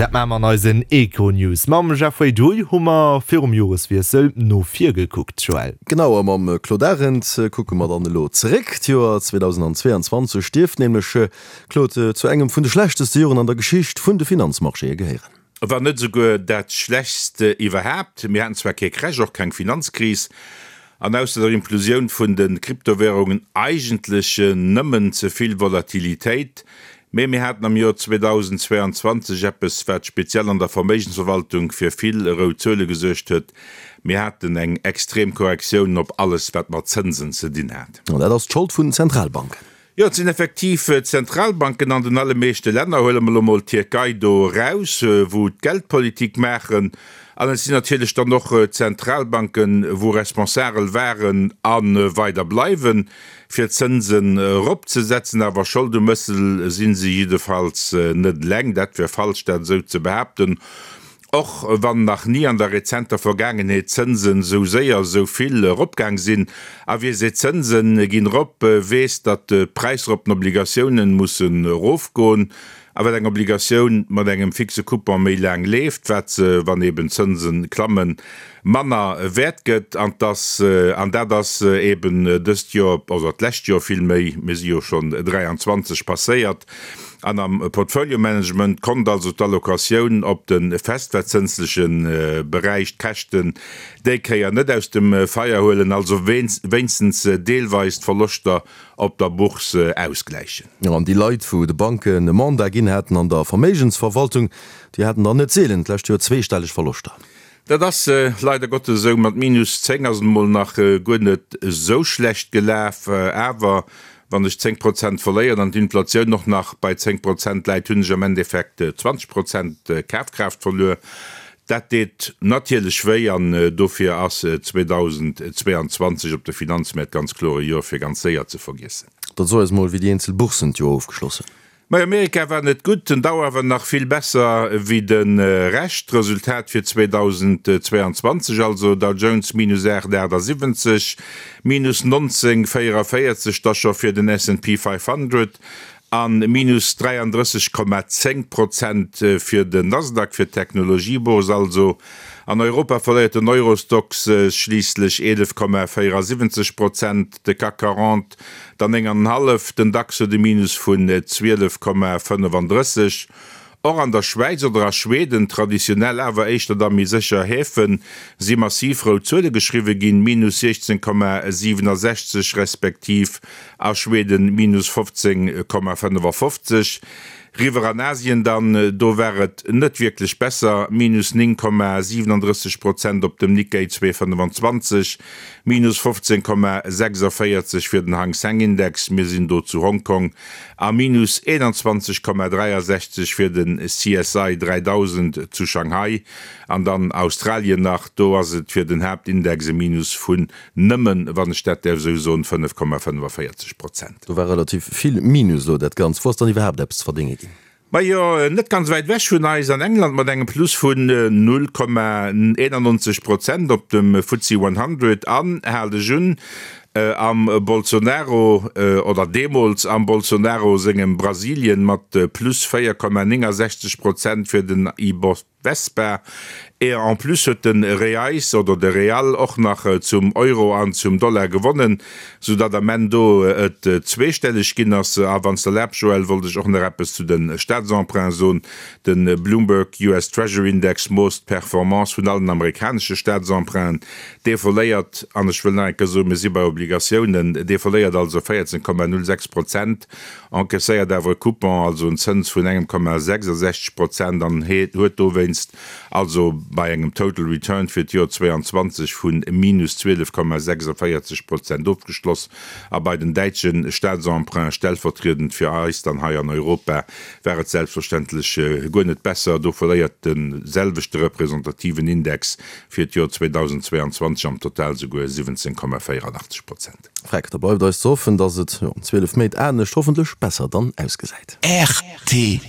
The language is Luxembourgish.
Dat maache mer an eisen Econews. Mam Jeffrey Duy hu mer virum Joreswiessel no vir gekuckt, Joël. Genau, a mam Claude Arend kucke mer dann elo zeréck. D'Joer 2022 dierft nämlech, Claude, zu engem vun de schlechteste Joren an der Geschicht vun de Finanzmarchéë gehéieren. Wann net esouguer dat schlechtst iwwerhaapt. Mir haten zwar kee Crash, och keng Finanzkris, an ausser der Implosioun vun de Kryptowärungen eigentlech nëmmen ze vill Volatilitéit, mee mir haten am Joer 2022 eppes, wat speziell an der Verméigensverwaltung fir vill rout Zuele gesuergt huet, Mir haten eng extrem Korrektioun op alles, wat mat Zënsen ze dinn hat. An dat ass d'Schold vun Zentralbanken. Jo, et sinn effektiv d'Zentralbanken an den allemeeschte Länner, huele mer elo mol d'Tierkei do eraus, wou d'Geldpolitik maachen. An et sinn natierlech dann och d'Zentralbanken, wou responsagel waren a weider bleiwen, fir d'Zënsen eropzesetzen. Awer Schold um Mëssel si se jiddefalls net eleng. Dat wär falsch, dat esou ze behaapten. Och wann nach ni an der rezenter Vergaangenheet d'Zënsen esou séier esou vill eropgaang sinn. A wie seet d'Zënsen ginn erop, weess, datt d'Präisser op den Obligatiounen mussen erofgoen. A wat eng Obligatioun mat engem fixe Coupon méi laang leeft, wat se, wann eben d'Zënsen klammen, manner wäert gëtt. An dass, an dat ass eben dëst Joer, oder d'lescht Joer villméi, mir si jo schonn 23, passéiert. An am Portfolio Management konnt also d'Allocatioun op de festverzënsleche Beräich d'Käschten déi Kéier net aus dem Feier huelen, also wéinstens deelweis d'Verloschter op der Bourse ausgläichen. Jo, an déi Leit, wou de Banken e Mandat ginn haten an der Verméigensverwaltung, déi haten dann net seelen d'lescht Joer zweestelleg Verloschter. Dat ass leider Gottes esou. Mat minus 10 ass et emol nach guer net esou schlecht gelaf. Awer wann ech 10 Prozent verléieren an d'Inflatioun och nach bei 10 Prozent läit, hunn ech am Endeffekt 20 Prozent Kafkraaft verluer. Dat deet natierlech wéi an dofir ass 2022 op de Finanzmäert ganz kloer e Joer fir ganz séier ze vergiessen. Da so eis mol, wéi déi eenzel Bourssen d'Joer ofgeschloss hunn. Mei Amerika war net gutt, den Dow awer nach vill besser wéi de Rescht. Resultat fir 2022 also, Dow Jones minus 8,78, minus 19,44 da scho fir den S&P 500 a minus 33,10 Prozent fir den Nasdaq, fir d'Technologiebourse also. An Europa verléiert den Eurostoxx schliisslech 11,74 Prozent, de CAC 40 Der 9 an en hallef, den Dax huet e Minus vun 12,35. Och an der Schwäiz oder a Schweden, traditionell awer éischter da méi sécher Häfen, si massiv rout Zuele geschriwwe ginn, Minus 16,67 respektiv a Schweden Minus 15,55. Riwwer an Asien dann, do war et net wierklech besser, Minus 9,37 Prozent op dem Nikkei 225, Minus 15,46 fir den Hang Seng Index, mir sinn do zu Hongkong, a Minus 21,63 fir den CSI 3000 zu Shanghai. An dann Australien nach, do ass et fir den Haaptindex e Minus vun Nëmmen, wann ech dat däerf esou soen, 5,45 Prozent. Do war relativ vill Minus elo dat Ganzt. Wou ass dann iwwerhaapt eppes ze verdénge ginn? Majo, net ganz wäit ewech vun eis, an England mat engem Plus vun 0,91 Prozent op dem FTSE 100 an, hal dech un, am Bolsonaro, oder deemools am Bolsonaro sengem Brasilien mat plus 4,69 Prozent fir den Ibovespa. Vespa. Et en plus huet de Reais oder de Real och nach zum Euro an zum Dollar gewonnen, sou datt am Enn do et zweestelleg ginn ass. A wann s d'erlaabs Joël, wollt ech och nach eppes zu de Staatsemprunts soen. De Bloomberg US Treasury Index moosst d'Performance vun allen amerikanesche Staatsemprunten. Dee verléiert, an ech wëll nach eng Kéier soen, mir si bei Obligatiounen, dee verléiert also 14,06 Prozent. Encaisséiert awer e Coupon, also en Zëns vun engem Komma 66 Prozent an huet dowéinst also bei engem Total Return fir d'Joer 22 vu minus 12,46 Prozent ofgeschloss. A bei den däitsche Staatsemprunts, stellvertriedend fir eis dann hei an Europa, war et selbstverständlech guer net besser. Do verléiert de selwechte representativen Index fir d'Joer 2022 am Total souguer 17,84 Prozent. Freck, da bleift eis ze hoffen, dass et no 12 Méint anescht, hoffentlech besser dann ausgesäit. Rtl.